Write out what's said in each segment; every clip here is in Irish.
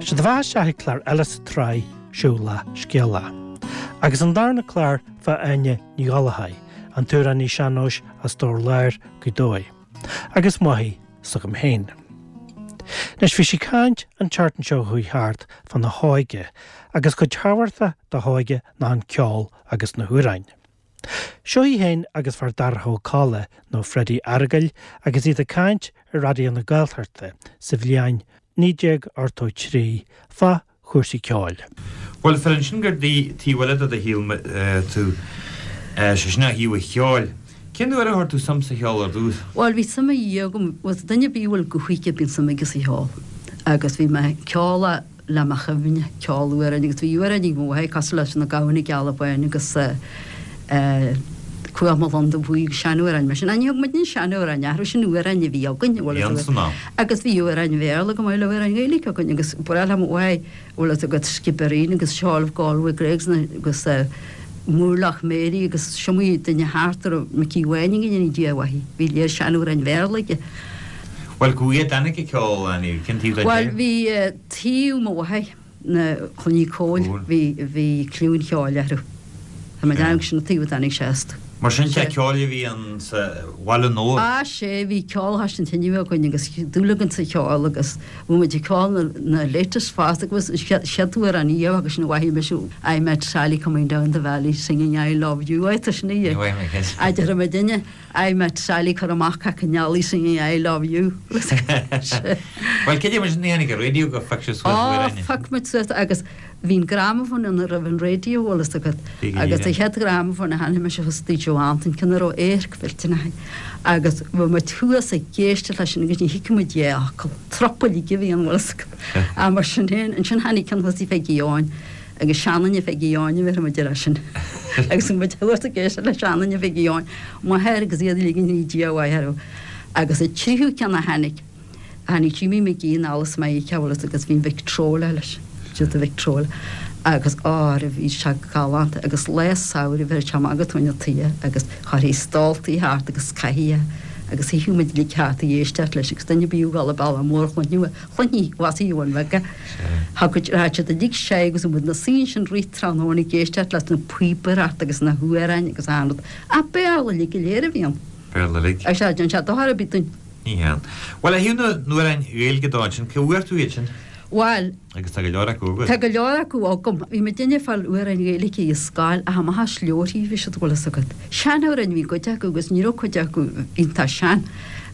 Sé do bheatha isteach ag clár eile sa tsraith Siúlach Scéalach. Agus an darna clár fá Áine Ní Ghallchóir, an t-amhránaí sean-nóis as Dobhar Láir, Gaoth Dobhair. Agus máthair s'agam féin. Anois bhí sí ag caint an tseachtain seo chuaigh thart fána hóige agus cuid thábhachtach dá hóige ná an ceol agus na hamhráin. Seo í féin agus Feardorcha Ó Cadhla, nó Freddie Fhearghail, agus iad ag caint ar Raidió na Gaeltachta sa bhliain 1983 fá chúrsaí ceoil. Bhuel, fir ansin gur taobh eile de do shaol tú, sé sin ó thaobh an cheoil. Cén uair a chuir tú suim sa cheol ar dtús? Bhuel, bhí suim agam, bhuel, duine ar bith a bhfuil guth aige bíonn suim aige sa cheol. Agus bhí mé ag ceol le mo chuimhne, ceol amhráin agus bhí amhráin ag mo mháthair cosúil leis Na Gamhna Geala Bána agus Cuach mo Lon Dubh Buí agus seanamhráin mar sin. Ní thug muidne seanamhráin orthu, sin amhráin a bhí againn, bhfuil a fhios agat. Agus bhí amhráin Bhéarla go maith le amhráin Ghaeilge againn agus ba bhreá le mo mháthair, bhfuil a fhios agat, Skibbereen agus Shawl of Galway Grey agus Moorlough Mary agus is iomaí duine thart a raibh Micí Bháin go ndéana Dia a mhaith, bhí léir seanamhráin Bhéarla aige. Bhuel, cá huaidh a dtáinig an ceol, Annie? Cén taobh den Bhuel, bhí taobh mo mháthar, na Clann Uí Cóil, bhí, bhí cliú an cheoil orthu. Tá mé ag déanamh sin an taobh a dtáinig sé astu. Mar sin, teach ceoil a bhí ann sa Bhaile Nua? Á, sea, bhí ceol thar an tine againn agus dúil againn sa cheol agus bhí muid ag ceol na, na latest fosta agus an chéad amhrán riamh agus sin a mhaithfidh mise I met Sally coming down the valley singing I love you, á, tá sin í. Ní mhaithfidh mé ceist. A déarfaidh muidinne. I met Sally cur amach cac an eallaigh singing I love you. Bhuel, cad é mar sin a tháinig an raidió gur phioc sibh suas Á, amhráin? phioc muid suas agus bhí an gramafón ann roimh an raidió, bhfuil fhios agat. Agus an chéad ghramafón a cheannaigh mise thuas i dtigh Joe Antain, ceann a raibh adharc mhillteanach air. Agus bhí muid thuas ag éisteacht leis sin agus ní thuigfeadh muid dhá fhocal. Trup uilig a bhí ann, bhfuil fhios agat. Ach mar sin féin, ansin tháinig ceann thuas i Pheigí Eoin. Agus seanduine Pheigí Eoin a bhéarfaidh muid air sin. Agus muid thuas ag éisteacht le seanduine Pheigí Eoin, m'athair agus iad uilig go ndéana Dia a mhaith orthu. Agus an tríú ceann a tháinig, tháinig Jimmy McGee anall as Meiriceá bhfuil fhios agat agus bhí an Victrola leis, siad an Victrola. Agus á, bhí sé galánta agus lá samhraidh bheir sé amach go tóin an toighe agus chuirthí stóltaí thart agus cathaoir agus shuíodh muid uilig thart ag éisteacht leis agus duine ar bith a ghabháil an bealach mór chluinfeadh é. Chluinfí bhas Eoin Bheaga. Thagadh raghadh siad uilig sé agus muid 'na suí ansin rith tráthnóna ag éisteacht leis na píobaireacht agus na hamhráin agus achan rud. Ach Béarla uilig go léir a bhí ann. Béarla uilig. Agus sea, déan sé dochar ar bith dúinn. Ní hea. Bhuel, ó thaobh na n-amhrán Gaeilge dó ansin, cá bhfuair tú iad sin? Bhuel. Agus tá go leor acu agat. Tá go leor acu agam. Bhí muidinne ag fáil amhráin Ghaeilge i scoil ach amach as leabharthaí a bhí siad, bhfuil fhios agat. Seanamhráin a bhí cuid acu agus ní raibh cuid acu iontach sean.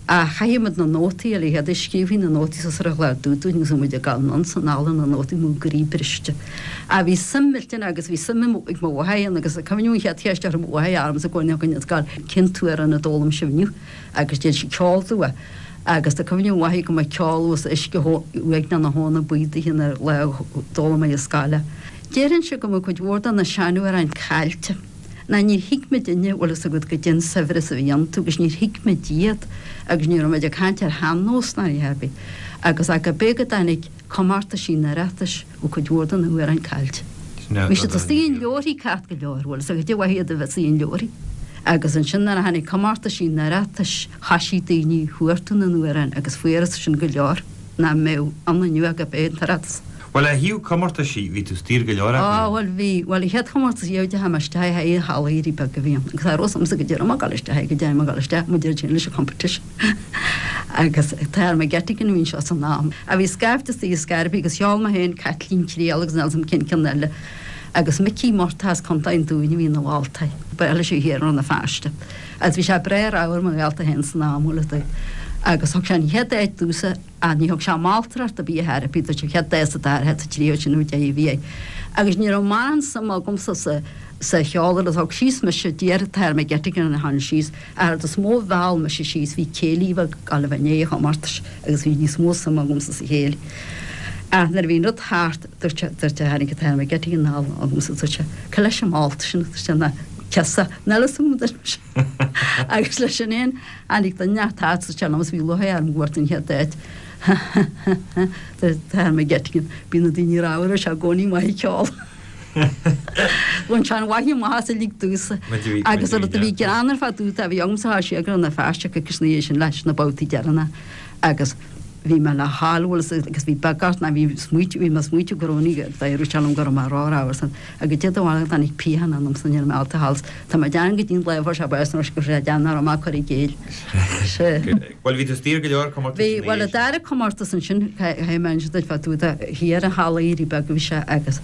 Ach chaithfeadh muid na nótaí a léamh, scríobhthaí na nótaí suas ar an chlár dubh dúinn agus muid ag gabháil anonn 's anall ar na nótaí, mo chroí briste. Ach bhí suim millteanach agus bhí suim ag mo mháthair ann agus cuimhním an chéad cheist a chuir mo mháthair ormsa i gcónaí againn ag gabháil, cén t-amhrán a d'fhoghlaim sibh inniu? Agus deir sí ceol domh é. Agus tá cuimhne mhaith agam go mba ceol thuas uisce uaigneach na habhna buí daoithe an lá a d'fhoghlaim mé i scoil é. Déarfainnse go mbeadh cuid mhór de na seanamhráin caillte. Ná níor thuig muidinne, bhfuil fhios agat, goidé an saibhreas a bhí iontu agus níor thuig muid iad agus ní raibh muid ag caint ar shean-nós ná a dhath ar bith. Agus ach go b'é go dtáinig comórtaisí an Oireachtais, bhí cuid mhór de na hamhráin caillte. Bhí siad istigh in leabharthaí ceart go leor, bhfuil fhios agat, goidé mhaith iad a bheith istigh in leabharthaí. Agus ansin nuair a tháinig comórtaisí an Oireachtais, thoisigh daoine ag chuartú na n-amhrán agus fuarthas sin go leor nach mbeadh ann inniu ach go b'é an tOireachtas. Bhuel, ó thaobh comórtaisí, bhí tú istigh ar go leor acu. Á, bhuel, bhí. Bhuel, an chéad chomórtas riamh a dteachaigh mé isteach air, i Halla Éirí Beag a bhí ann. Agus cha raibh fhios a'msa goidé raibh mé ag dul isteach air, goidé mé ag dul isteach, muid ar leis an competition. Agus Tara McGettigan a bhí anseo san am. A bhí scaifte istigh i Scairpí agus cheol mé féin Caitlín Triail agus níl 'fhios a'm cén ceann eile. Agus Micí Murtagh as Contae an Dúin a bhí ina mholtóir. Ba eile sé thiar i Rann na Feirste. Agus bhí sé breá ramhar mo ghaolta féin san am, bhfuil fhios a'd. Agus thug sé an chéad áit domhsa. Ach ní thug sé moltóireacht ar bith ar chor ar bith dúirt sé chéad dá sa dara háit sa tríú sin nó deich a bhí air. Agus ní raibh mórán suim agamsa sa sa cheol agus thug síos mise d'iarr Tara McGettigan a tháinig síos ach an rud is mó a mheall mise síos bhí céilí bheag ag dul a bheith i ndiaidh an chomórtais agus bhí níos mó suim agamsa sa chéilí. Ach nuair a bhí an rud thart dúirt sé dúirt sé tháinig Tara McGettigan anall agamsa dúirt sé cé leis an mbolta sin dúirt sé ná ciosa níl fhios agam dúirt mise. Agus leis sin fhéin Tháinig duine inteacht thart sa tsean-am is bhí lúcháir orm go bhfuair tú an chéad áit. Ha ha ha ha Tara McGettigan. Bíonn na daoine ramhar is i gcónaí maith ag ceol. Bhain sé an mhaith amach as uilig domhsa. Agus an rud a bhí greannmhar fá dtaobh de, bhí agamsa thá sé ag Rann na Feirste coicís ina dhiaidh sin leis na babhtaí deireanacha agus. bhí mé le hál bhfuil fhios agus bhí beag ort ná bhí smaoitiú bhí mé smaoitiú go raibh ní d'éirigh sé liom go raibh mé ró-ramhar san agus Dé do bharr tháinig pian ionamsa ní raibh mé ábalta thall tá mé ag déanamh go dtí an lá a fuair sé bás nó go raibh sé ag déanamh nach raibh mé ag cur i gcéill. Sea. Bhuel bhí tú istigh ar go leor comórtais Bhí bhuel an dara comórtas ansin caithfidh mé inse duit fá dtaobh de thiar an Halla Éirí Beag a bhí sé agus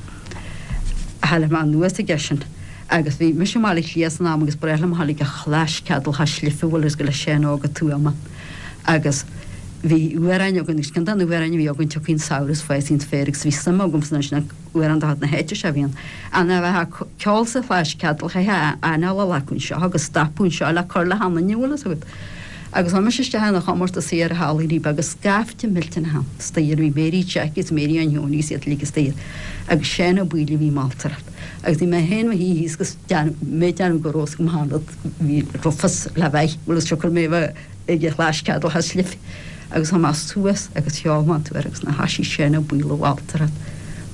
tháinig mé anuas aige sin agus bhí mise i mBaile Átha Cliath san am agus ba bhreá liom a ghabháil ag an Chlais Ceadal Chois Life bhfuil fhios agat le Seán Óg Ó Tuama agus bhí amhráin againn agus ceann de na hamhráin a bhí againn tiocfaidh an samhradh is fásfaidh an féar agus bhí suim agamsa ansin an amhrán de chuid na háite seo a bhí ann. Ach a bheith ag ceol sa Chlais Ceadal chaithfeá anáil a ghlacadh anseo agus stopadh anseo le cur le hanainn an bhfuil fhios agat. Agus chuaigh mise isteach ina chomórtas thiar i Halla Éirí Beag agus scaifte millteanach ann istoíche bhí Mary Jackie agus Mary Ann Sheoin agus iad uilig istoíche agus Seán Ó Baoill a bhí moltóireacht. Agus bhí mé féin mo shuí thíos agus mé ag déanamh go raibh fhios agam achan rud bhí raibh fios le bheith bhfuil fhios siocair mé a bheith ag an Chlais Ceadal Chois Life. Agus chuaigh mé suas agus cheol mé an t-amhrán agus nuair a thoisigh Seán Ó Baoill a mholtóireacht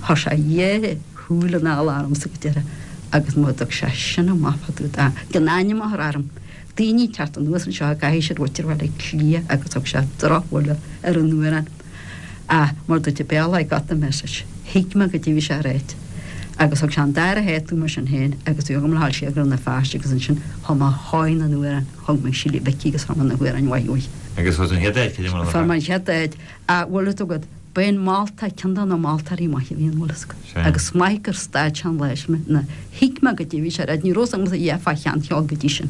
chuir sé a dhá shúil anall ormsa go deireadh agus má d'fhag sé sin amach fá dtaobh de gan ainm a chur orm. Daoine ag teacht anuas anseo i gcaithfidh siad mhuintir Bhaile Átha Cliath agus thug sé drochbhuille ar an amhrán. Ach mar dúirt an Béarla I got the message. Thuig mé goidé bhí sé a ráit. Agus thug sé an dara háit dom mar sin féin agus bhí agam le dhul siar go Rann na Feirste agus ansin chum mé chóir na n-amhrán, thug mé Síle Mhicí agus fuair mé na hamhráin mhaith uaidh. Agus fuair tú an chéad áit, cad é mar a Fuair mé an chéad áit. Ach bhfuil fhios agat, b'é an moltóir ceann de na moltóirí maithe a bhí ann, bhfuil fhios agat. Sea. Agus maith gur stad sé an lá sin mé, na, thuig mé goidé bhí sé a ráit, ní raibh fhios agamsa a dhath fá sheancheol go dtí sin.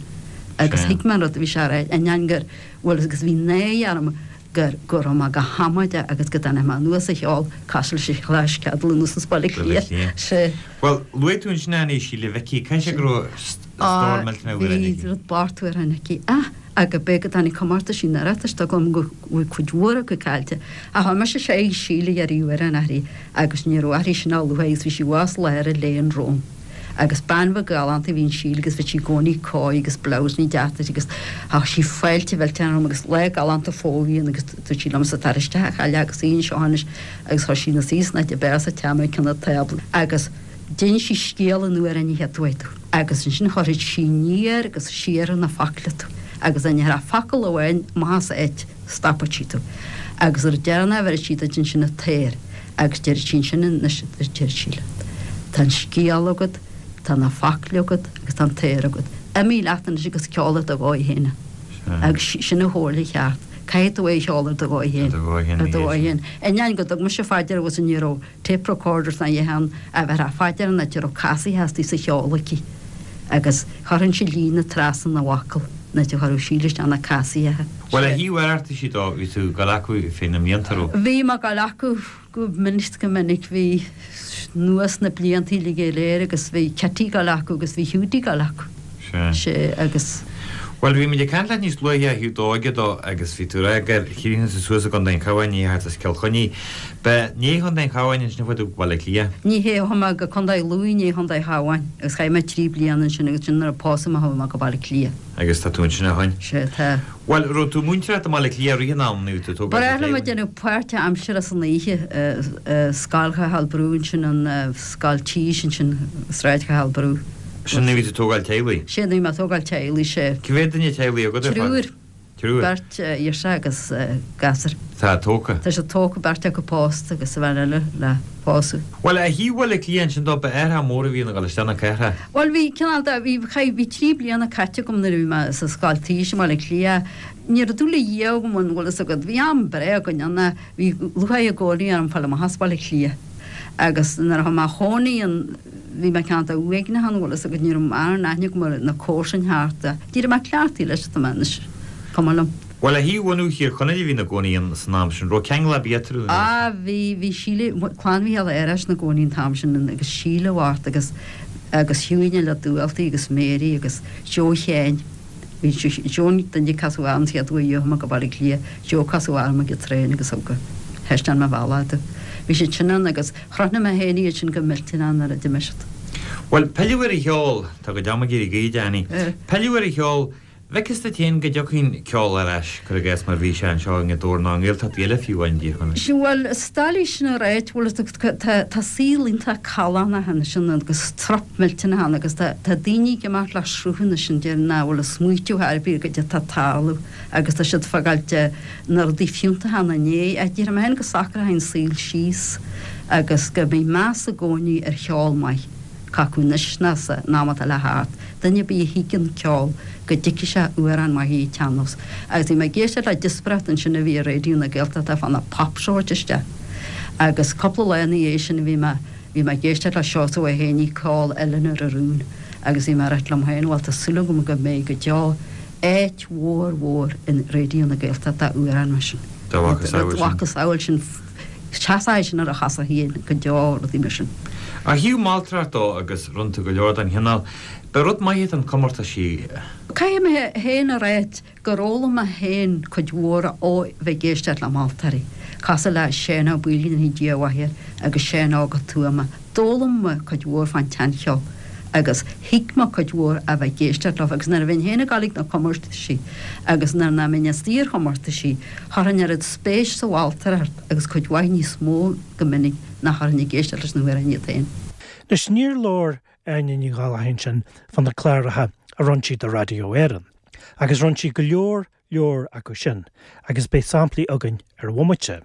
Agus Sea. thuig mé an rud a bhí sé a ráit, ainneoin gur, bhfuil fhios agat, agus bhí náire orm gur, go raibh mé go hamaideach agus go dtáinig mé anuas a cheol cosúil leis an Chlais Ceadal anuas as Baile Átha Baile Átha Cliath. Cliath. Sea. Bhuel, luaigh tú ansin Annie Síle Mhicí, caithfidh sé go raibh stór millteanach amhrán Bhí aici. rud bocht amhrán aici. Ah! Agus b'é go dtáinig comórtaisí an Oireachtais tá agam go bhfuil cuid mhór acu caillte. Ach chuaigh mise sé Síle ag iarraidh amhrán uirthi agus ní raibh uirthi sin a luaithe agus bhí sí abhus lár an léinn romham. Agus bean bheag ghalánta a bhí in Síle agus bhí sí i gcónaí cóir agus blouse deas uirthi agus thá sí fáilte mhillteanach romham agus lá galánta fómhair a bhí ann agus dúirt sí liomsa tar isteach a chailleach agus suigh anseo anois agus chuir sí ina suí san áit ab fhearr sa teach mé ag cionn an tábla agus D'inis sí scéal an amhráin an chéad uair domh agus ansin chuirfeadh sí aniar agus siar ar na focla tú agus dá ndéarfá focal amháin amach as áit stopfadh sí tú agus nuair a deireanach a bheireadh sí duit ansin an t-aor agus deireadh sí ansin anois a deir sí leat tá an scéal agat, tá na focla agat agus tá an t-aor agat. Imigh leat anois agus ceol ar do dhóigh féin é. Agus sin an chomhairle cheart. Caithfidh tú é a cheol ar do dhóigh féin. Ar do dhóigh féin. Ainneoin go dtug mise fá deara agus ní raibh tape recorders ná a dhath ann a bheith fá deara an áit a raibh casaithe astu sa cheol aici agus chuirfinnse líne trasna na bhfocal an áit a chuirfeadh Síle isteach na casaithe. Bhuel, ó thaobh Oireachtaisí dó, bhí tú ag dul acu fé na mblianta, raibh? Bhí mé ag dul acu go minic go minic, bhí anuas na blianta uilig go léir agus bhí Kitty ag dul acu agus bhí Hiúdaí ag dul acu. Sea. Sea, agus. Bhuel, bhí muid ag caint leat níos luaithe ó thaobh d'óige dó agus bhí tú ag rá gur chríochnaigh tú suas i gContae an Chabháin, ní thart as Cill Chainnigh. Ba i ndiaidh Chontae an Chabháin ansin a chuaigh tú go Baile Átha Cliath? Ní hea, chuaigh mé go Contae Lú i ndiaidh Chontae an Chabháin agus chaith mé trí bliana ansin agus ansin nuair a pósadh mé chuaigh mé go Baile Átha Cliath. Agus tá tú ansin ó shoin? Sea, tá. Bhuel, raibh tú ag múinteoireacht i mBaile Átha Cliath i rith an ama nó bhí tú ag tógáil Ba bhreá liom ag déanamh páirt aimsire san oíche i Scoil Chathal Brú ansin, an Scoil Tís ansin, Sráid Chathal Brú. Sin nuair a bhí tú ag tógáil teaghlaigh? Sin nuair a bhí mé ag tógáil teaghlaigh, sea. Cá mhéad duine teaghlaigh agat ar fad? Triúr. Triúr. Beirt ghirseach agus gasúr. Tá tógtha. Tá siad tógtha, beirt acu pósta agus an bhean eile le pósadh. Bhuel, ó thaobh Bhaile Átha Cliath ansin dó, ba athrach mór a bhí ann a dhul isteach na cathrach. Bhuel, bhí cineál de, bhí, chaith, bhí trí bliana caite agam nuair a bhí mé sa scoil tís i mBaile Átha Cliath. Ní raibh dúil a dhath agam ann, bhfuil fhios agat. Bhí am breá againn ann, bhí lúcháir i gcónaí orm fáil amach as Baile Átha Cliath. Agus nuair a chuaigh mé a chónaí ann, bhí mé cineál de uaigneach ann, bhfuil fhios agat, ní raibh mórán aithne agam ar na comharsain thart. D'éirigh mé cleachtaithe leis, tá mé anois, cuma liom. Bhuel, ó thaobh bhunú Thír Chonaill a bhí ina gcónaí ann san am sin, raibh ceangal ar bith eatarthu nó? Á, bhí, bhí Síle, clann Mhícheáil Fhearghais ina gcónaí an t-am sin agus Síle Mhart agus, agus Hughie le Dúaltaí agus Mary agus Joe Sheáin. Bhí Joe an duine a casadh orm an chéad uair a chuaigh mé go Baile Átha Cliath, Joe a casadh orm ag an traein agus thug thaispeáin mé bealach domh. Bhí siad sin ann agus chrothnaigh mé féin iad sin go millteanach nuair a d'imigh siad. Bhuel, pilleadh ar an cheol, tá go deas ag éirí gaoithe, Annie. Pilleadh ar an cheol. Bhfeiceas duit féin go dtiocfaidh an ceol ar ais, cuir i gcás, mar bhí sé anseo i nGaoth Dobhair nó i nGaeltachtaí eile fiú amháin i dTír Chonaill. Sea, bhuel, is doiligh sin a ráit, bhuel, tá, tá saol iontach callánach ann sin agus trup millteanach ann agus tá, tá daoine ag imeacht le sruth anois sin déarfainn nach bhfuil ag smaoitiú ar bith ar goidé atá ag tarlú agus tá siad ag fágáilt na rudaí fiúntacha ina ndiaidh. Ach déarfaidh mé féin go socróidh an saol síos agus go mbeidh meas i gcónaí ar cheol maith. Cé acu anois ná san am atá le theacht, duine ar bith a thuigeann ceol go dtuigfidh sé amhrán maith an tsean-nós. Agus bhí mé ag éisteacht le díospóireacht ansin a bhí ar Raidió na Gaeltachta fá na pop show isteach. Agus cúpla lá ina dhiaidh sin bhí mé bhí mé ag éisteacht le Seosamh Ó hÉanaí ceol Eiléan Ros Rún agus bhí mé ag ráit liom féin bhuel tá súil agam go mbeidh go deo áit mhór mhór in Raidió na Gaeltachta d'amhráin mar sin. Dá mhacasamhail sin. Mhacasamhail sin. Seasfaidh sin ar a chosa féin go deo, rudaí mar sin. Ó thaobh moltóireacht dó agus rinne tú go leor den chineál, ba rud maith iad an comórtaisí. Caithfidh mé féin a ráit gur fhoghlaim mé féin cuid mhór ó bheith ag éisteacht le moltóirí, cosúil le Seán Ó Baoill, go ndéanfaidh Dia a mhaith air, agus Seán Óg Ó Tuama. D'fhoghlaim mé cuid mhór fán tseancheol agus thuig mé cuid mhór a bheith ag éisteacht leo agus nuair a bheinn féin ag dul ag na comórtaisí agus nuair nach mbeinn istigh ar chomórtaisí, Chuirfinn oiread spéis sa mholtóireacht agus cuid mhaith níos mó go minic ná chuirfinn ag éisteacht leis na hamhráin iad féin. Anois, níor labhair Áine Ní Ghallchóir ansin fá na cláracha a rinne sí do Radio Éireann, agus rinne sí go leor leor acu sin, agus beidh samplaí againn ar bhomaite.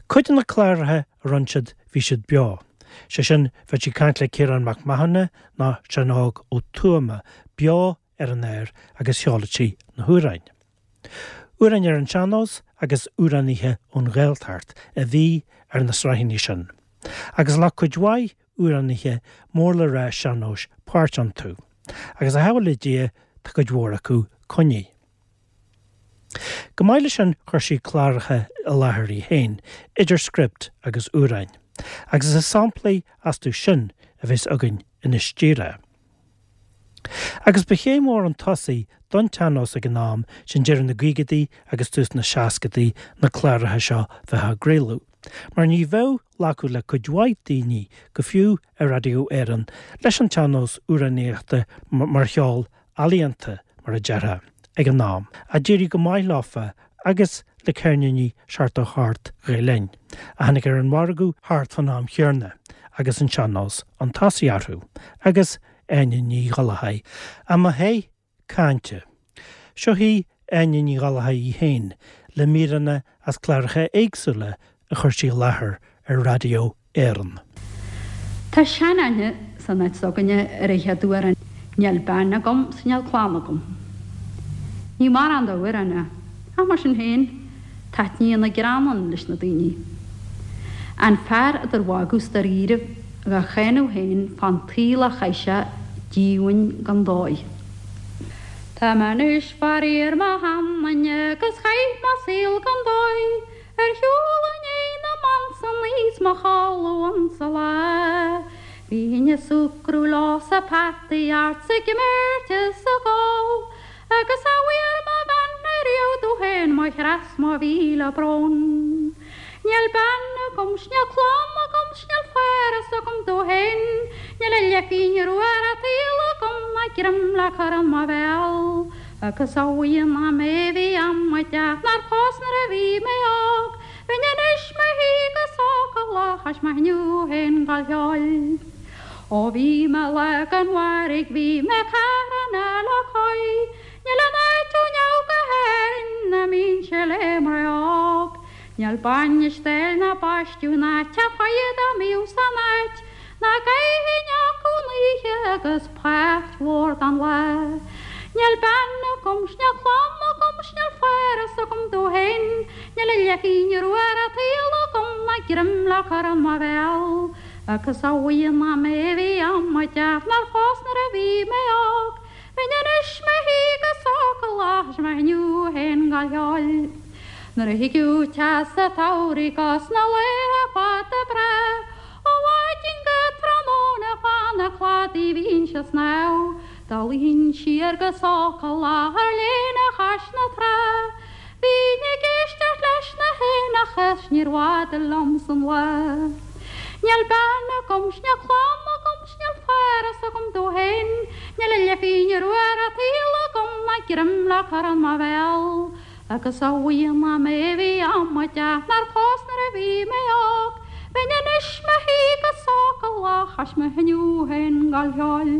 Cuid de na cláracha a rinne siad, bhí siad beo, sé sin, bheadh sí ag caint le Ciarán Mac Mathúna nó Seán Óg Ó Tuama beo ar an aer agus sheoladh sí na hamhráin. Amhráin ar an sean-nós agus amhránaithe ón Ghaeltacht a bhí ar na sraitheanna sin, agus ghlac cuid mhaith amhránaithe mór le rá sean-nóis páirt iontu, agus a shábháil le Dia tá cuid mhór acu coinnithe. Go maith leis sin chuir sí cláracha i láthair í féin, idir script agus amhráin, agus is samplaí astu sin a bheas againn anois díreach. Agus ba chéim mhór chun tosaigh don tsean-nós ag an am sin deireadh na gcaogaidí agus tús na seascadaí na cláracha seo bheith á gcraoladh, mar ní bheadh glacadh le cuid mhaith daoine, go fiú ar Raidió Éireann, leis an tsean-nós amhránaíochta mar cheol ealaíonta, mar a déarfá, ag an am. Ach d'éirigh go maith leofa agus le ceirníní 78 Ghael Linn, a tháinig ar an mhargadh thart fán am chéanna agus an sean-nós chun tosaigh orthu, agus Áine Ní Ghallchóir i mo theach cainte. Seo í Áine Ní Ghallchóir í féin le míreanna as cláracha éagsúla a chuir sí i láthair ar Raidió Éireann. Tá sean-aithne san áit s'againne ar an chéad amhrán Níl bean agam 's níl clann agam. Ní mórán d'amhrán é, ach mar sin féin, taitníonn an greann ann leis na daoine. An fear idir mhagadh 's dáiríribh dhá cháineadh féin fán tsaol a chaith sé díomhaoin gan dóigh. Tá mé anois faraor mo sheanduine agus chaith mé saol gan dóigh. Ar shiúl i ndiaidh na mban san is mo chodladh insa lá. Bhínn ag súgradh leo sa pheataí art 's ag imirt is ag ól. Agus a bhfuair mo bhean ariamh domh féin mo chreas mo mhíle brón. Níl bean agam 's níl clann agam 's níl fearas agam domh féin. Níl a leathphingin rua ar an tsaol agam ná greim le cur i mo bhéal. Agus a bhuí nach mé bhí amaideach nár phós nuair a bhí mé óg, bheinn anois mo shuí go sócúil ach is maith inniu féin gal cheoil. Ó bhí mé lá gan mhairg bhí mé carna le cois, níl aon áit ó neamh go hÉirinn ná mbínnse le mná óg. Níl bainis dail ná baisteadh ná teach foighid dá mbíodh san áit, ná gcaithfinn acu an oíche agus páirt mhór den lá. Níl bean agam 's níl clann agam 's níl fearas agam domh féin, níl a leathphingin rua ar an tsaol agam ná greim le cur i mo bhéal. Agus a bhuí nach mé a bhí amaideach nár phós nuair a bhí mé óg, bheinn anois mo shuí go sócúil ach is maith inniu féin gal cheoil. Nuair a thigeadh teas an tsamhraidh 'gus na laetha fada breá, Ó mhaidin go tráthnóna fan an chladaigh bhínnse ag snámh, Dá luífinn siar go sócúil ar léana chois na trá, Bhínn ag éisteacht leis na héanacha 's níor bhfada liom san lá. Níl bean agam 's níl clann agam. 's níl faireas agam domh féin, níl a leathphingin rua ar an tsaol agam ná greim le cur in mo bhéal. Agus a bhuí nach mé a bhí amaideach nár phós nuair a bhí mé óg, bheinn anois 'mo shuí go sócúlach ach mo thinfeadh féin gal cheoil.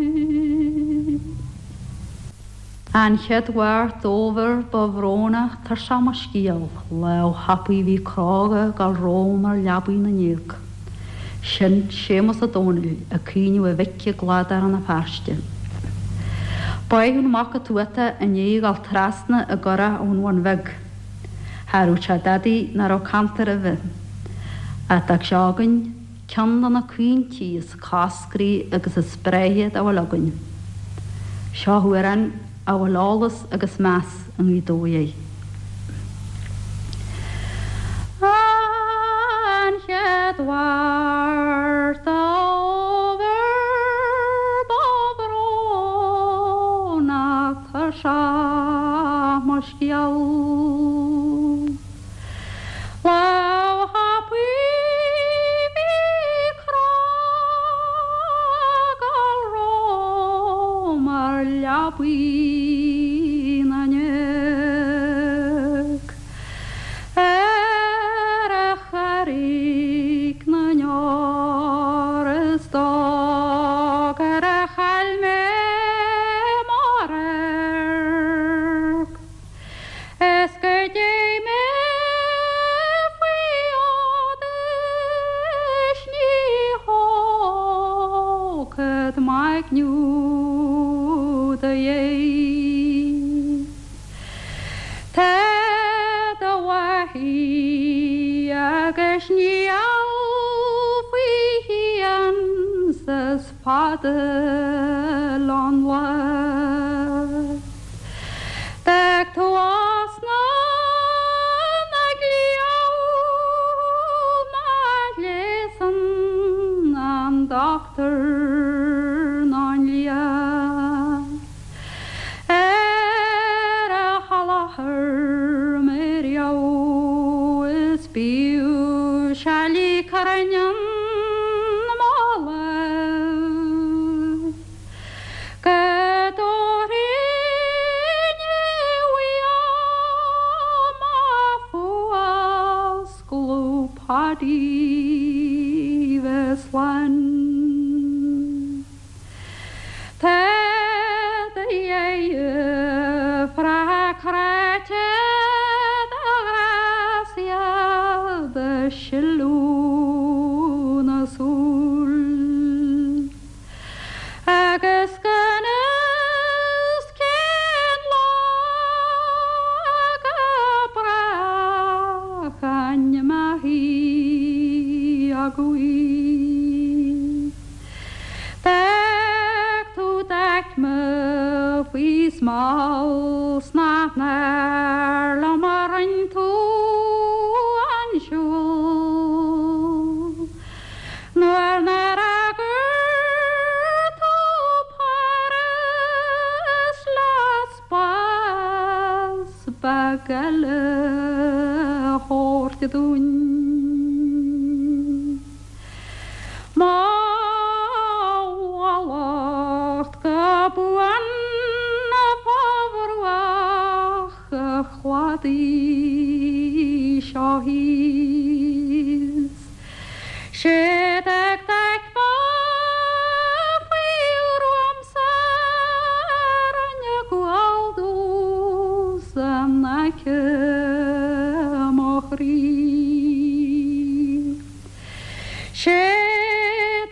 An chéad Mháirt d'fhómhar ba bhrónach tuirseach mo scéal, lámh thapaidh bhí cróga ag gabháil romham ar leabaidh na ndéag. Sin Séamus Ó Domhnaill ag caoineadh a mhic i gcladach Rann na Feirste. Báitheadh an mac an Tuata i ndiaidh a dhul trasna i gcurach ón Bhun Bheag. Cha rabh sé dadaidh ná raibh cantar roimhe. Ach d'fhág sé againn ceann de na caointí is coscraí agus is breátha dá bhfuil againn. Seo amhrán a bhfuil eolas agus meas i nGaoth Dobhair air. An chéad Mháirt d'fhómhar ba bhrónach tuirseach mo scéal. Lámh thapaidh bhí cróga ag gabháil romham ar leabaidh na ndéag. Ar a Charraig na nDeor is dó gur a chaill mé mo radharc. Is go dté mé faoi fhód is ní thógfad m'aigne do dhéidh. Tá do mhaithí agus níl faoi shians is fada lon lá. D'fhág tú osna na gcliabh má ghléasann an dochtúir ná an lia ar a sholáthar mé riamh is bíodh seile crainn an mholadh. Go dtabharfainn uaim mo fuascladh Paddy bheith slán. Tá do dheirfiúr cráite do ghrásaigh do shileadh na súl. Agus gan fhios cén lá go brách ainm a thí agaibh. D'fhág tú d'aicme faoi smál 's nach náir liom a roinn tú an siúl. Nuair nár fhreagair tú Páras le spás beag eile a thabhairt dúinn. Mo mhallacht go buan fá bhruach an chladaigh seo thíos. Sé d'fhág d'aicme faoi ghruaim-sa rinne gual dubh in aice mo chroí. Sé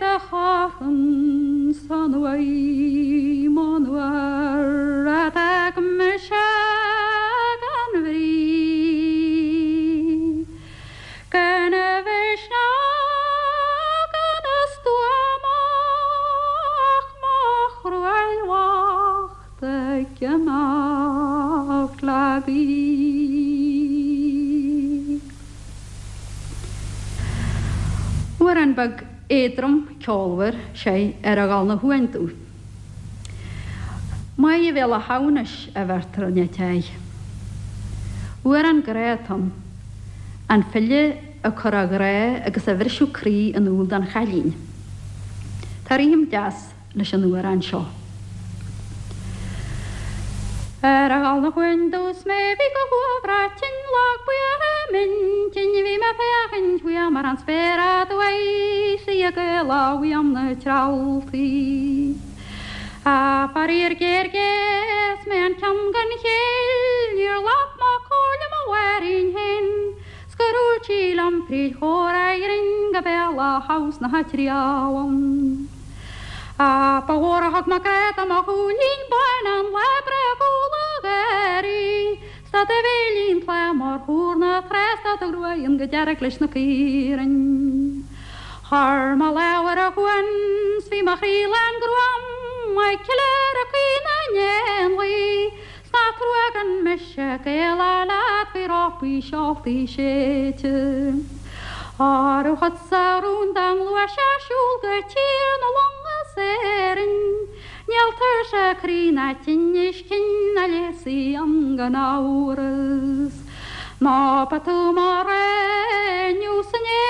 do charthann san uaigh monuar a d'fhág mise gan bhrí. Gan a mhisneach gan a stuaim ach mo chruail bhocht ag imeacht le gaoith. Amhrán beag éadrom ceolmhar, sé, ar a dhul 'na shuain domh. Maith a bhéal a shamhnais a bheirtear in áit aghaidh. Amhrán grá atá ann. An file ag cur a ghrá agus a bhriseadh croí in iúl don chailín. Tá rithim deas leis an amhrán seo. Ar a dhul 'na chuain domh 's mé bhí go huaibhreach tinn lag buíoch i m'intinn bhí mé féachaint uaim ar an spéir aduaidh 's í ag éaló uaim na trealltaí. Á faraor géar géar 's mé an ceann gan chéill níor ghlac mé comhairle mo mháithrín féin 's gur dhúirt sí liom fríd chomhrá ghrinn go béal Átha na dTriallann. Á, ba mhór a thug mé grá do mo shúilín bán an lá bréagúla gáirí, 's tá do bhéilín tláth mar thúr na trá 's tá do ghruaig fhionn go dearg leis na caoirigh. Chuir mo lámh ar a shuan 's bhí mo chroí lán gruaim ag ceiliúradh caoi na n-éanlaith, 's nach trua gan mise ag éaló leat faoi rópaí seoltaí séidte. Óró chugatsa rún dá ngluaisfeá siúl go tír na long as Éirinn, níl tuirse croí ná tinnis cinn a leigheasfaidh an gan amhras. Nó ba tú mo rogha inniu 's inné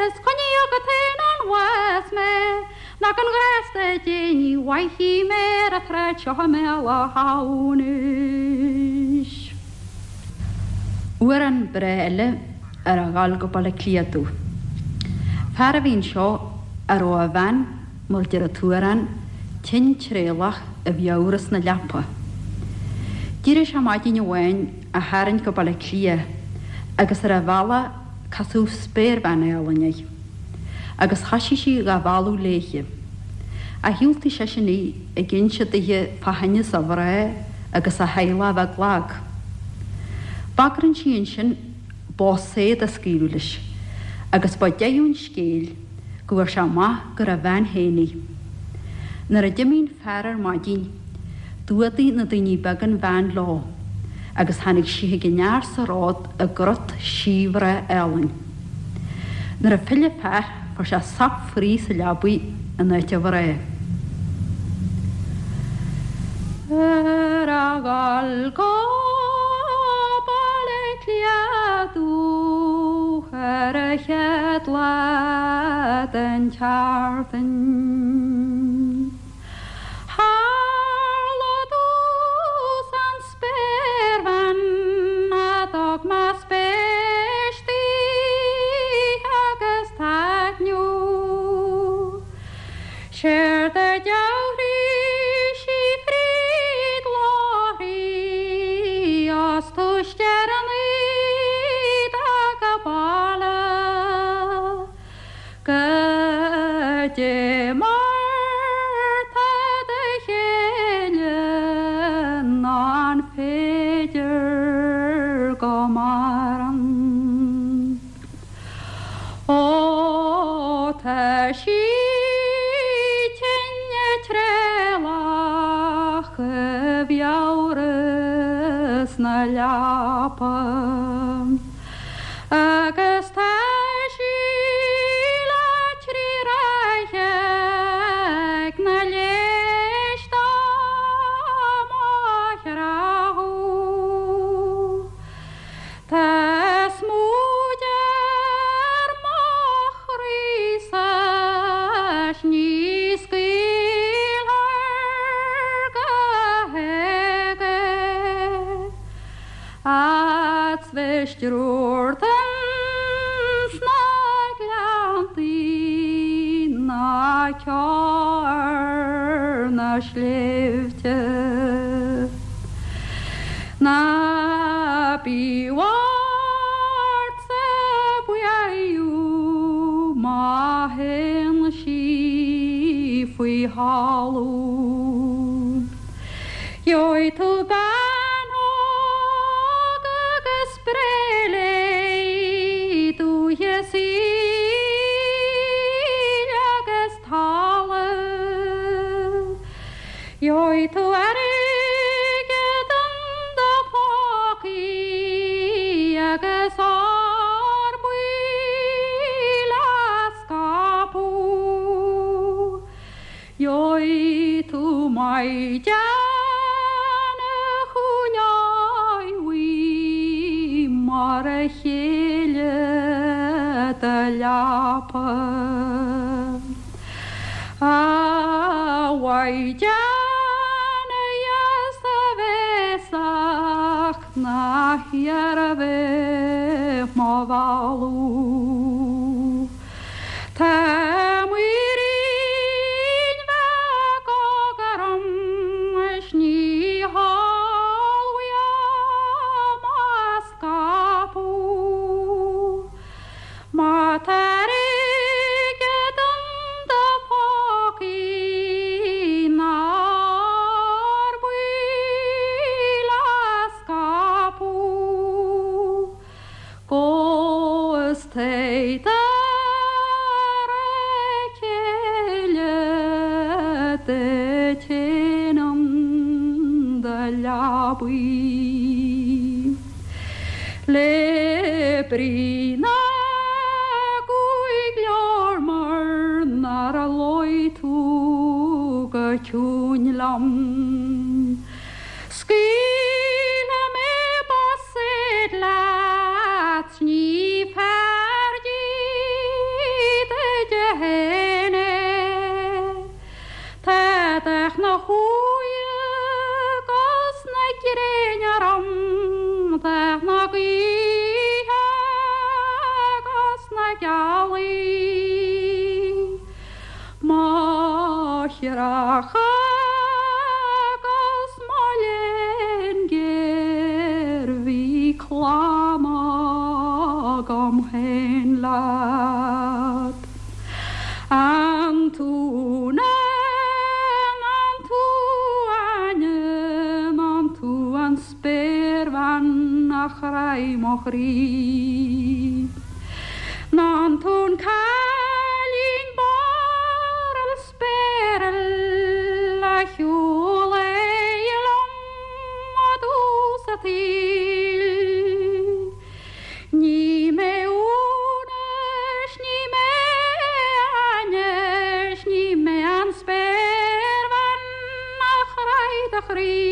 is coinnigh agat féin ón bhás mé. Ná gan ghrásta Dé ní bhfaighidh mé ar an tsráid seo i mBéal Átha Hamhnais. Amhrán breá eile ar a dhul go Baile Átha Cliath domh. Fear a bhí anseo a raibh a bhean, mar deir an t-amhrán, tinn tréallach i bhfiabhras na leapa. D'éirigh sé maidin amháin á tharraingt go Baile Átha Cliath agus ar a bhealach casadh spéirbhean álainn air. Agus thoisigh sí dhá mhealladh léithe. Ach dhiúltaigh seisean í, ag inse dithe fá thinneas a mhná agus a theaghlach a bheith lag. Bagrann sí ansin bó saor a scaoileadh leis, agus ba deireadh an scéil go bhfuair sé amach gur a bhean féin í. Nuair a d'imigh an fear ar maidin, D'fhuadaigh na daoine beaga an bhean leo agus tháinig sí chuig an fhear sa ród i gcrot síbhreá álainn. Nuair a phill an fear fuair sé sop fraoigh sa leabaidh in áit a mhná. Ar a dhul go Baile Átha Cliath domh ar an chéad lá den tseachtain. Tharla domhsa an spéirbhean a d'fhág mo spéis daoithe agus taitneamh. Séard a dhealraigh sí fríd láithrí as túis deireadh ag a baile. Goidé mar tá do chéile nó an féidir go maireann? Ó tá sí tinn tréallach i bhfiabhras na leapa. Agus tá sí le trí ráithe ag na léis dá mo chreathadh. Tá smúid ar mo chroí-sa 's ní scaoilfear go héag é. 'S bheith stiúrtha ins na gleanntaí ná ceo ar na sléibhte. Ná bí ortsa buaireamh má théann sí faoi thalamh. Gheobhaidh tú bean óg agus breith léi, dúiche saoil agus talamh. Gheobhaidh tú airgead in do phócaí agus ór buí le scaipeadh. Gheobhaidh tú maighdean a choinneoidh mar a chéile do leapa. A mhaighdean dheas bhéasach na hiarmha mo mhealladh. Tá muirín bheag óg orm is ní heol uaim a scaipeadh. Má tá airgead in do phócaí nár baol a scaipeadh. 'Gus téigh dar a chéile duit fhéin in do leabaidh. Le brí na gcúig leabhar mar nár luigh tú go ciúin liom. Scaoilfidh mé bosaeid leat 's ní fearr duit féin é. Tá dath na huaighe 'gus na gréine orm, dath na gaoithe 'gus na gealaí. Mo chreachadh 'gus mo léan géar bhí clann agam féin leat. An tú Úna, an tú Áine, an tú an spéirbhean a chraith mo chroí? An tú an cailín barrail spéiril a shiúlaigh liom i dtús a tsaoil? Ní mé Úna 's ní mé Áine 's ní mé an spéirbhean a chraith do chroí.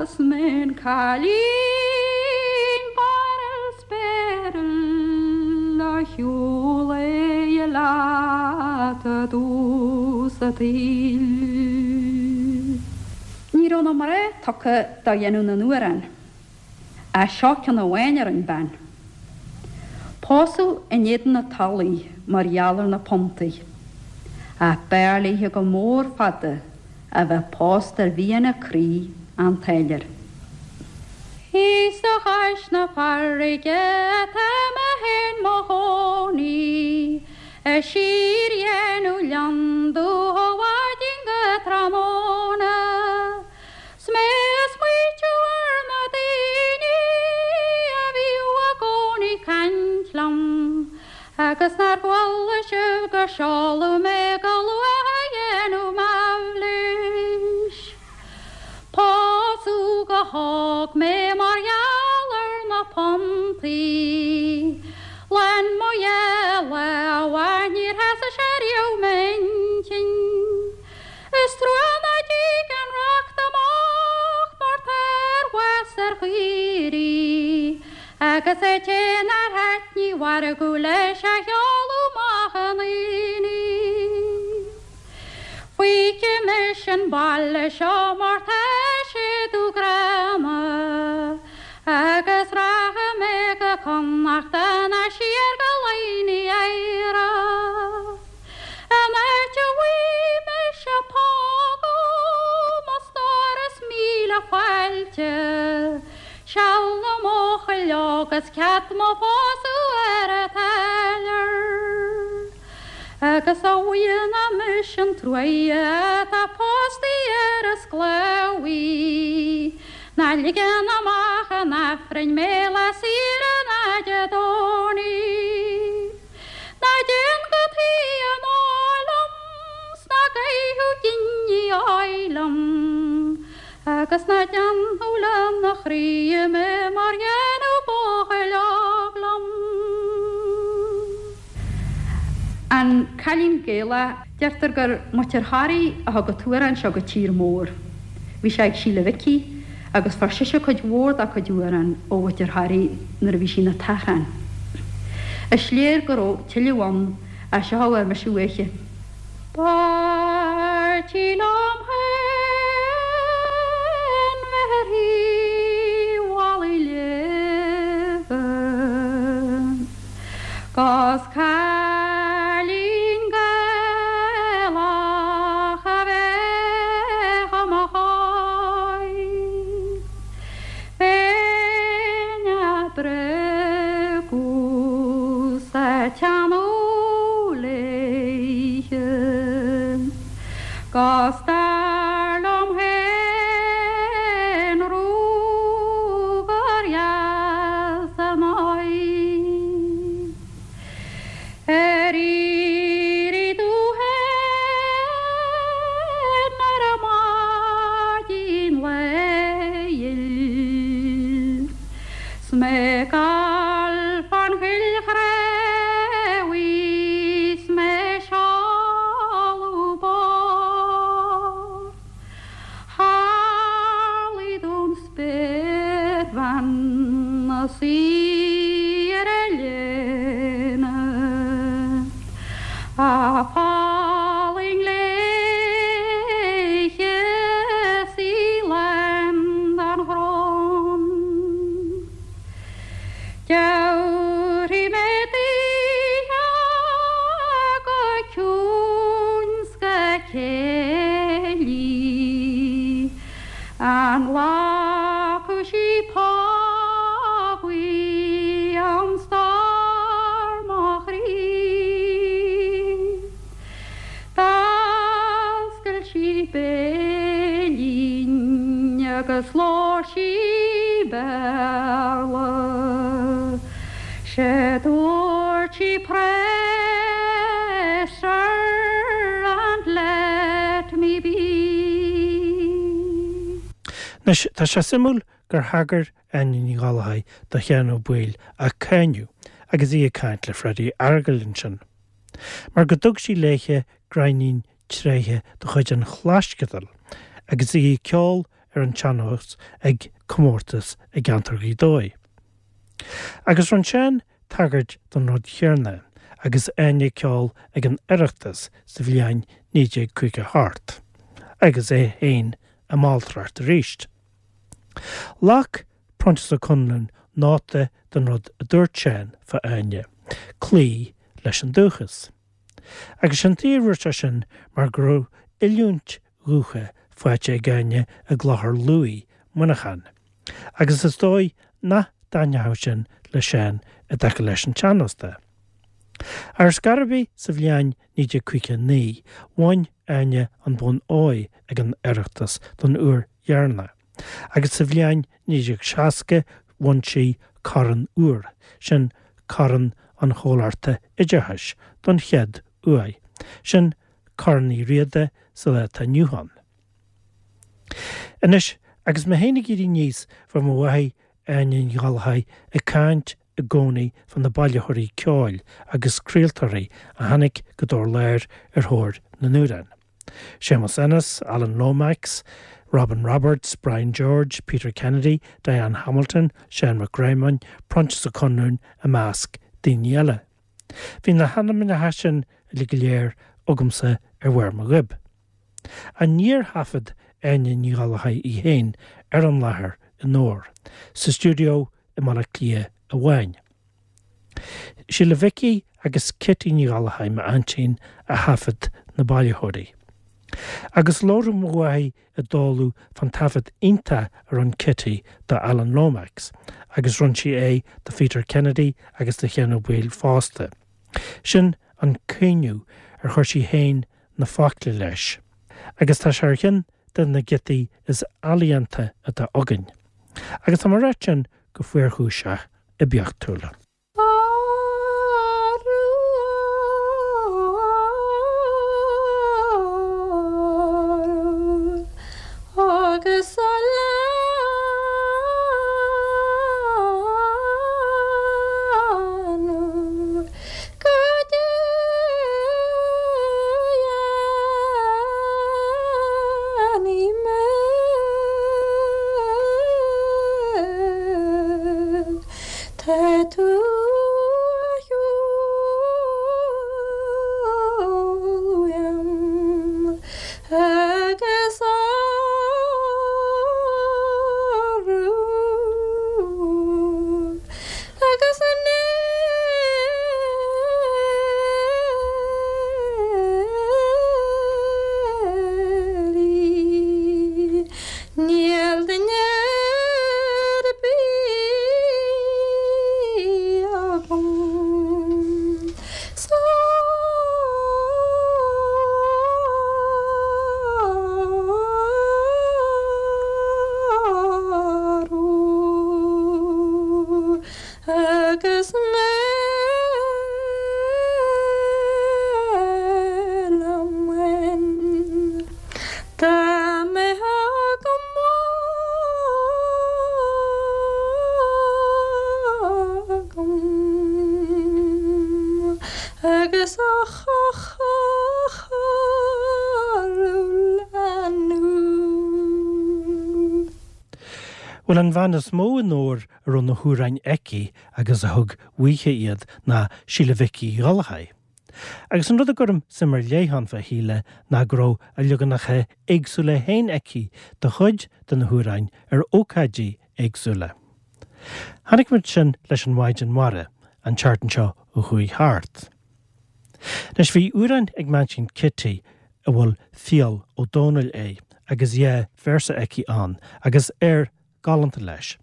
Is mé an cailín barrail spéiril a shiúlaigh leat i dtús a tsaoil. Ní raibh na mná tugtha do dhéanamh na n-amhrán, ach seo ceann amháin a rinn bean. Pósadh in éadan a tola í mar gheall ar na puntaí, ach b'fhearr léithe go mór fada a bheith pósta ar mhian a croí, an táilliúir. Thíos a chois na farraige atá mé féin mo chónaí, A síordhéanamh lionndubh ó mhaidin go tráthnóna, 'S mé a smaoitiú ar na daoine a bhíodh i gcónaí caint liom, Agus nár chuala sibh gur seoladh mé go luath a dhéanamh m'aimhlis. Pósadh go hóg mé mar gheall ar na puntaí. Lán mo dhá lámha níor sheasaigh sé riamh m'intinn. Is trua ná dtig an racht amach mar tá ar bhás ar chaoirigh agus an té nár thaitnigh mhargadh leis a sheoladh amach 'un aonaigh. Fágfaidh mise an baile seo mar tá sé dubh gránna agus rachaidh mé go Connachta ná siar go Laighin Éire. An áit a bhfaighidh mise pógadh mo stór is míle fáilte, seal na mbuachaill óg is cead mo phósadh ar an táilliúir. Agus a bhuidhe ná mise an truaighe atá póstaí ar an sclábhaí, ná ligeann amach an Aifrinn mé lá saoire ná Dé Domhnaigh. Ná déan go taoi an óil liom 's ná gabhadh giní óil liom, agus ná déanadh lena chroí mé mar dhéanadh buachaill óg liom. An Cailín Gaelach, Deirtear gur Muintir Thoraí a thug an t-amhrán seo go tír mór. Bhí sé ag Síle Mhicí agus fuair sise cuid mhór dá cuid amhrán ó Mhuintir Thoraí nuair a bhí sí ina tachrán. Is léir go raibh tuilleadh ann. Ach seo a bhfuair mise uaithi. B'fhearr liom féin bheith ar thaobh Mhalaidh Léimhe 'Gus cailín Gaelach a bheith i mo chois. Bheinn a' breacadh 's a' teannadh léithe 'Gus dar liom féin rugar dheas ar m'aghaidh. Ar éirigh tú féin ar maidin lae ghil 's mé ag gabháil fán choill chraobhaigh 's mé ag seoladh barr. Tharlaigh don spéirbhean 'na suí ar a léine A fallaing léithe 's í lán den ghrán. Tabharfaidh mé daoithe go ciúin 's go céillí An nglacfaidh sí pápaí am stór mo chroí? D'oscail sí béilín agus labhair sí Béarla. 'Sé dúirt sí Pray sir and let me be. Anois, tá sé suimiúil gur thagair Áine Ní Ghallchóir do Sheán Ó Baoill á cáineadh agus í ag caint le Freddie Fhearghail ansin. Mar go dtug sí léithe gráinnín tréithe de chuid an Chlaisceadail agus í ag ceol ar an tsean-nós ag comórtas i gceantar Ghaoth Dobhair. Agus rinne Seán tagairt don rud chéarna agus Áine ag ceol ag an Oireachtas sa bhliain 1958 agus é féin i m'alltracht arís. Ghlac Proinsias Ó Conluain nóta den rud a dúirt Seán fá Áine, cloí leis an dúchas. Agus sé'n tuige a dúirt sé sin mar go raibh oiliúint dhúiche faighte ag Áine i gClochar Lughaidh, Muineachán. Agus is dóigh nach dtaitneodh sin le Seán i dtaca leis an tsean-nós de. Ar scor ar bith sa bhliain 1959 bhain Áine an bonn óir ag an Oireachtas don uair dheireanach agus sa bhliain 1960 bhain sí Corn Úr, sin Corn an Chomhlachta Oideachais, don chéad uair, sin Corn Uí Riada sa lá atá inniu ann. Anois, agus mé féin ag éirí aníos, bheadh mo mháthair, Áine Ní Ghallchóir, ag caint i gcónaí fá na bailitheoirí ceoil agus craoltóirí a tháinig go Dobhar Láir ar thóir na n-amhrán. Séamus Ennis, Alan Lomax, Robin Roberts, Brian George, Peter Kennedy, Diane Hamilton, Seán Mac Réamoinn, Proinsias Ó Conluain i measc daoine eile. Bhí na hainmneacha sin uilig go léir agamsa ar bharr mo ghoib. Ach níor thaifead Áine Ní Ghallchóir í féin ar an láthair i nDobhar, sa stiúideo i mBaile Átha Cliath amháin. Síle Mhicí agus Kitty Ní Ghallchóir, m'aintín, a thaifead na bailitheoirí. Agus labhradh mo mháthair i dtólamh fán taifead iontach a rinne Kitty do Alan Lomax, agus rinne sí é do Pheter Kennedy agus do Sheán Ó Baoill fosta. Sin an caoineadh ar chuir sí féin na focla leis, agus tá sé ar cheann de na giotaí is ealaíonta atá againn. Agus tá mé ag ráit sin go fuarchúiseach oibiachtúil. Agus a leanadh go déanaí mé. Tá tú. Is a leanbh. Bhuel an bhean is mó i nDobhar a raibh na hamhráin aici agus a thug uaithe iad ná Síle Mhic Uí Ghallchóir. Agus an rud a gcuirim suim ar leith ann fá Shíle ná go raibh a leaganacha éagsúla féin aici de chuid de na hamhráin ar ócáidí éagsúla. Chonaic muid sin leis an Mhaighdean Mhara an tseachtain seo a chuaigh thart. Anois bhí amhrán ag m'aintín Kitty a bhfuil Fial Ó Domhnaill air agus dhá véarsa aici ann agus air galánta leis.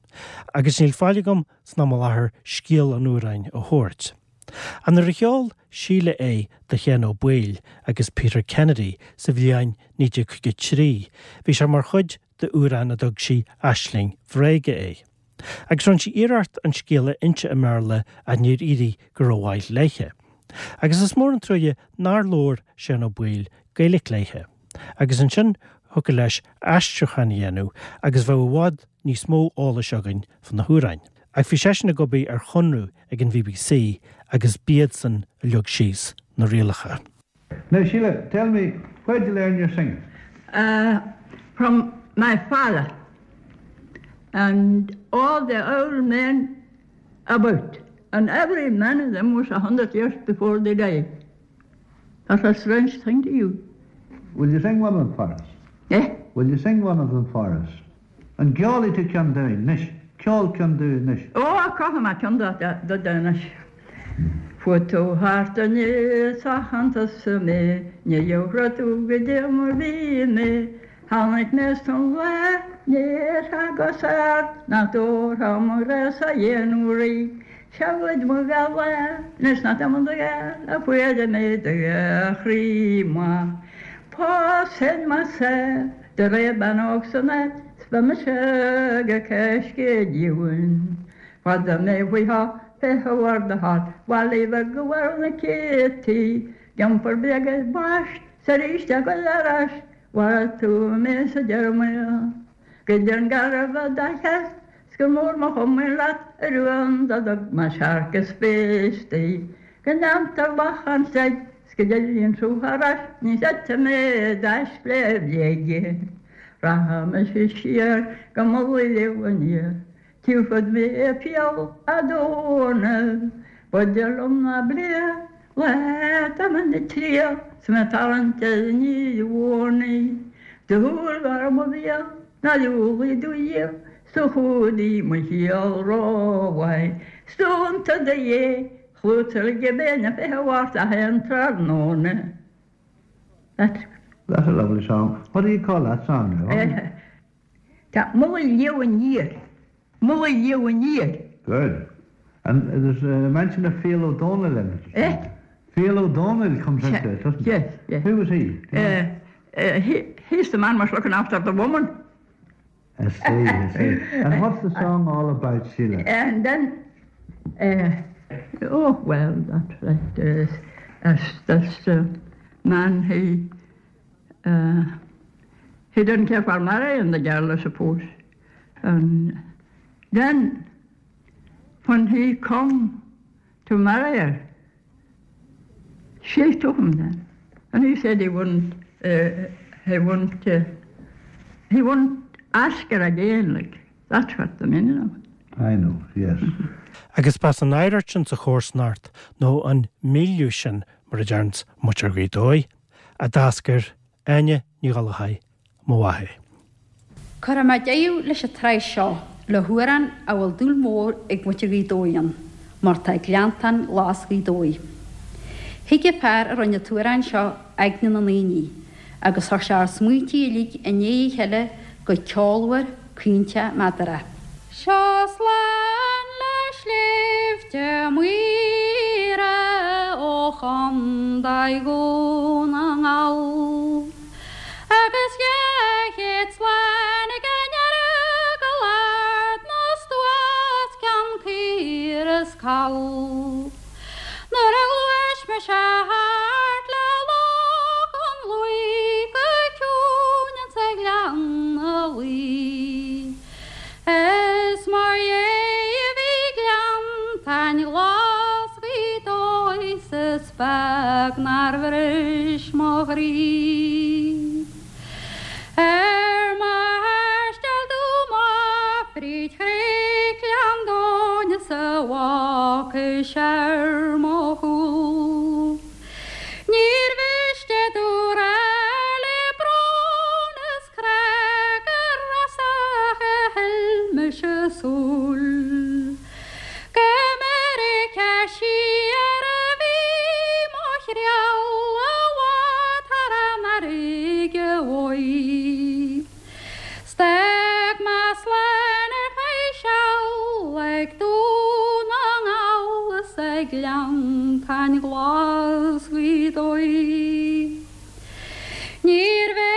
Agus níl faill agam san am i láthair scéal an amhráin a thabhairt. Ach nuair a cheol Síle é do Sheán Ó Baoill agus Peter Kennedy sa bhliain 1953 bhí sé mar chuid d'amhrán a dtug sí Aisling Bhréige air. Agus rinne sí iarracht an scéal a inse i mBéarla ach níor éirigh go rómhaith léithe. Agus is mór an truaighe nár labhair Seán Ó Baoill Gaeilge léithe. Agus ansin thiocfadh leis aistriúchán a dhéanamh agus bheadh i bhfad níos mó eolais againn fá na hamhráin. Ach bhí seisean ag obair ar chonradh ag an bbc agus b'iadsan a leag síos na rialacha. Now Sheila, tell me, where did you learn your singing? Uh, from my father and all the old men about. And every man of them was a hundred years before they died. That's a strange thing to you. Will you sing one of them for us? Eh? Will you sing one of them for us? An gceolfaidh tú ceann dúinn anois? Ceol ceann dúinn anois. Ó, ceolfaidh mé ceann duit anois. Chuaigh tú thart aníos a chantas mé, ní gheobhaidh tú goidé mar bhí mé. Tháinig mé san lá, níor thagas ort, nach dtabharfá mo ghrá-sa dhéanamh rí. Seoid mo ghala, anois nach dtagann do ghala, fuair mé do chroí maith. Pósfainn mise. Do réir bean óg san áit 's beidh mise go coiscéad-dhiúin. Fada mé faoi tha fé bharr do thart, bhaile bheag go bhfuil na céadtaí, D'iompar bréag ar bais 's arís a ghoil ar ais, mharaigh tú mé sa deireadh. Goideann garbh a do cheart 's gur mór mo chomaoin leat a rún do thug mo searc is péistí. Go ndéantar lachán seid 's go dtéann tú thar ais ní chreidfidh mé d'aisle bhréige. Rachaidh mise siar go Mullaigh Leamh aniar, tiúrfad mé fial a' Dónaill, B'fhuide liom ná Bleá Leat am na triail 's mé tarraingt ar an mhónaí. Do shúil mhar mo bhéal ná diúlaigh do dhíol 's do chumhdaigh mo shaol rómhaith. 'S dúnta do dhé chlútaigh go bé na 20 Mhárta 1 tráthnóna. That's That's a lovely song. What do you call that song now? Tá Mullaigh Leamh Aniar. Mullaigh Leamh Aniar. Good. And there's a mention of Fial Ó Dónaill in it. Eh? Fial Ó Dónaill comes into it, doesn't it? Yes, yes. Who was he? Uh, uh, he? He's the man was looking after the woman. I see, I see. And what's the song all about, Sheila? And then, uh, oh, well, that's right. Uh, that's, that's the man he, uh, he didn't care for marrying the girl, I suppose. And then, when he come to marry her, she took him then. And he said he wouldn't, uh, he wouldn't, uh, he wouldn't ask her again, like, that's what the meaning of it. I know, yes. Agus b'as an oidhreacht sin sa chomharsanacht, nó an milieu sin mar a deireanns muintir Ghaoth Dobhair, a d'eascair Áine Ní Ghallchóir, mo mháthair. Cuirfidh mé deireadh leis an tsraith seo le hamhrán a bhfuil dúil mhór ag muintir Ghaoth Dobhair ann, mar tá Gleanntán Glas Ghaoth Dobhair. Thuig an fear a rinne an t-amhrán seo aigne na ndaoine agus chuir sé ár smaointí uilig i ndiaidh a chéile go ceolmhar, caointe, meadarach. Seo slán le sléibhte Maoire ó Chondae Dhún na nGall agus 200 slán ag an Earagail Ard na Stuas Ceann Caor is Call. Nuair a ghluais mise thart le Loch an Lúigh go ciúin insa ghleann a luí. Is mar dhea a bhí Gleanntáin Ghlas Ghaoth Dobhair 's is fearr. beag nár bhris mo chroí. Ar mo thaisteal domh amach fríd chnoic Ghleann Domhain is a bhfágais ar mo chúl. Níor mhiste domh rá le brón is crá gur as a thuill mise súil. Go Meiriceá siar a bhí mo thriall i bhfad thar an fharraige uaidh. 'S d'fhág mé slán ar feadh seal ag Dún na nGall is ag Gleanntáin Ghlas Ghaoth Dobhair. Níorbh é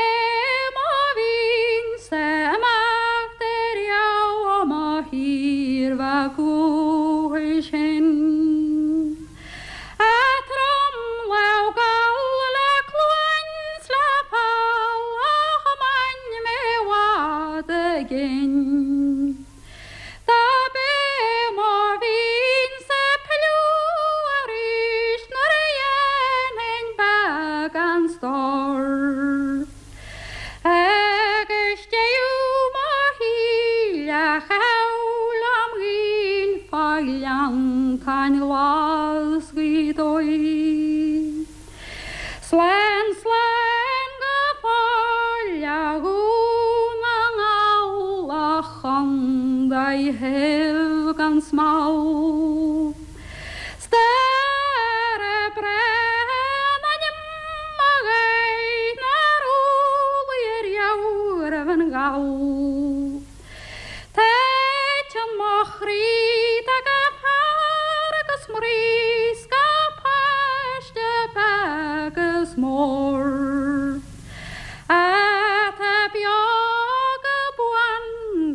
mo mhian-sa imeacht ariamh ó mo thír bheag dhúchais féin. A tromlámh Gall le cluain 's le poll a thiomáin mé i bhfad i gcéin. Dob é mo mhian-sa pilleadh arís nuair a dhéanfainn beagán stóir. Agus deireadh mo shaoil a chaitheamh lem ghaoil fá Ghleanntáin Ghlas Ghaoth Dobhair. Slán, slán go fóill a Dhún na nGall, a chondae shaibh gan smál. 'S dara breá an ainm a ghaibh nár umhlaigh ariamh roimh an Ghall. Titeann mo chroí do gach fear agus mnaoi 's gach páiste beag is mór Atá beo go buan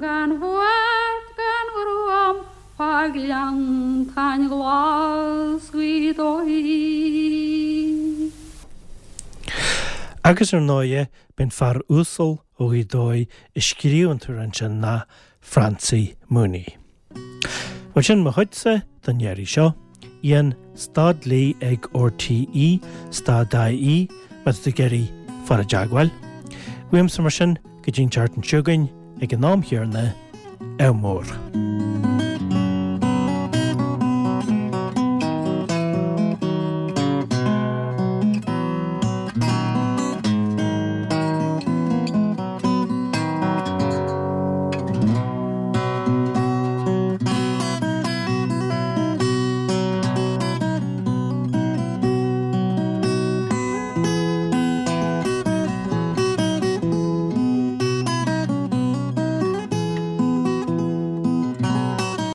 gan bhuairt gan ghruaim fá Ghleanntáin Ghlas Ghaoth Dobhair. Agus ar ndóighe, b'én fear uasal ó Ghaoth Dobhair a scríobh an t-amhrán sin ná Francie Mooney. Bhuel sin mo chuidse don iarraidh seo. Ian, stad léi ag RTÉ, stad IE, má tá tú ag iarraidh fáil i dteagmháil. Uaimse mar sin go dtí an tseachtain seo chugainn ag an am chéanna, ádh mór.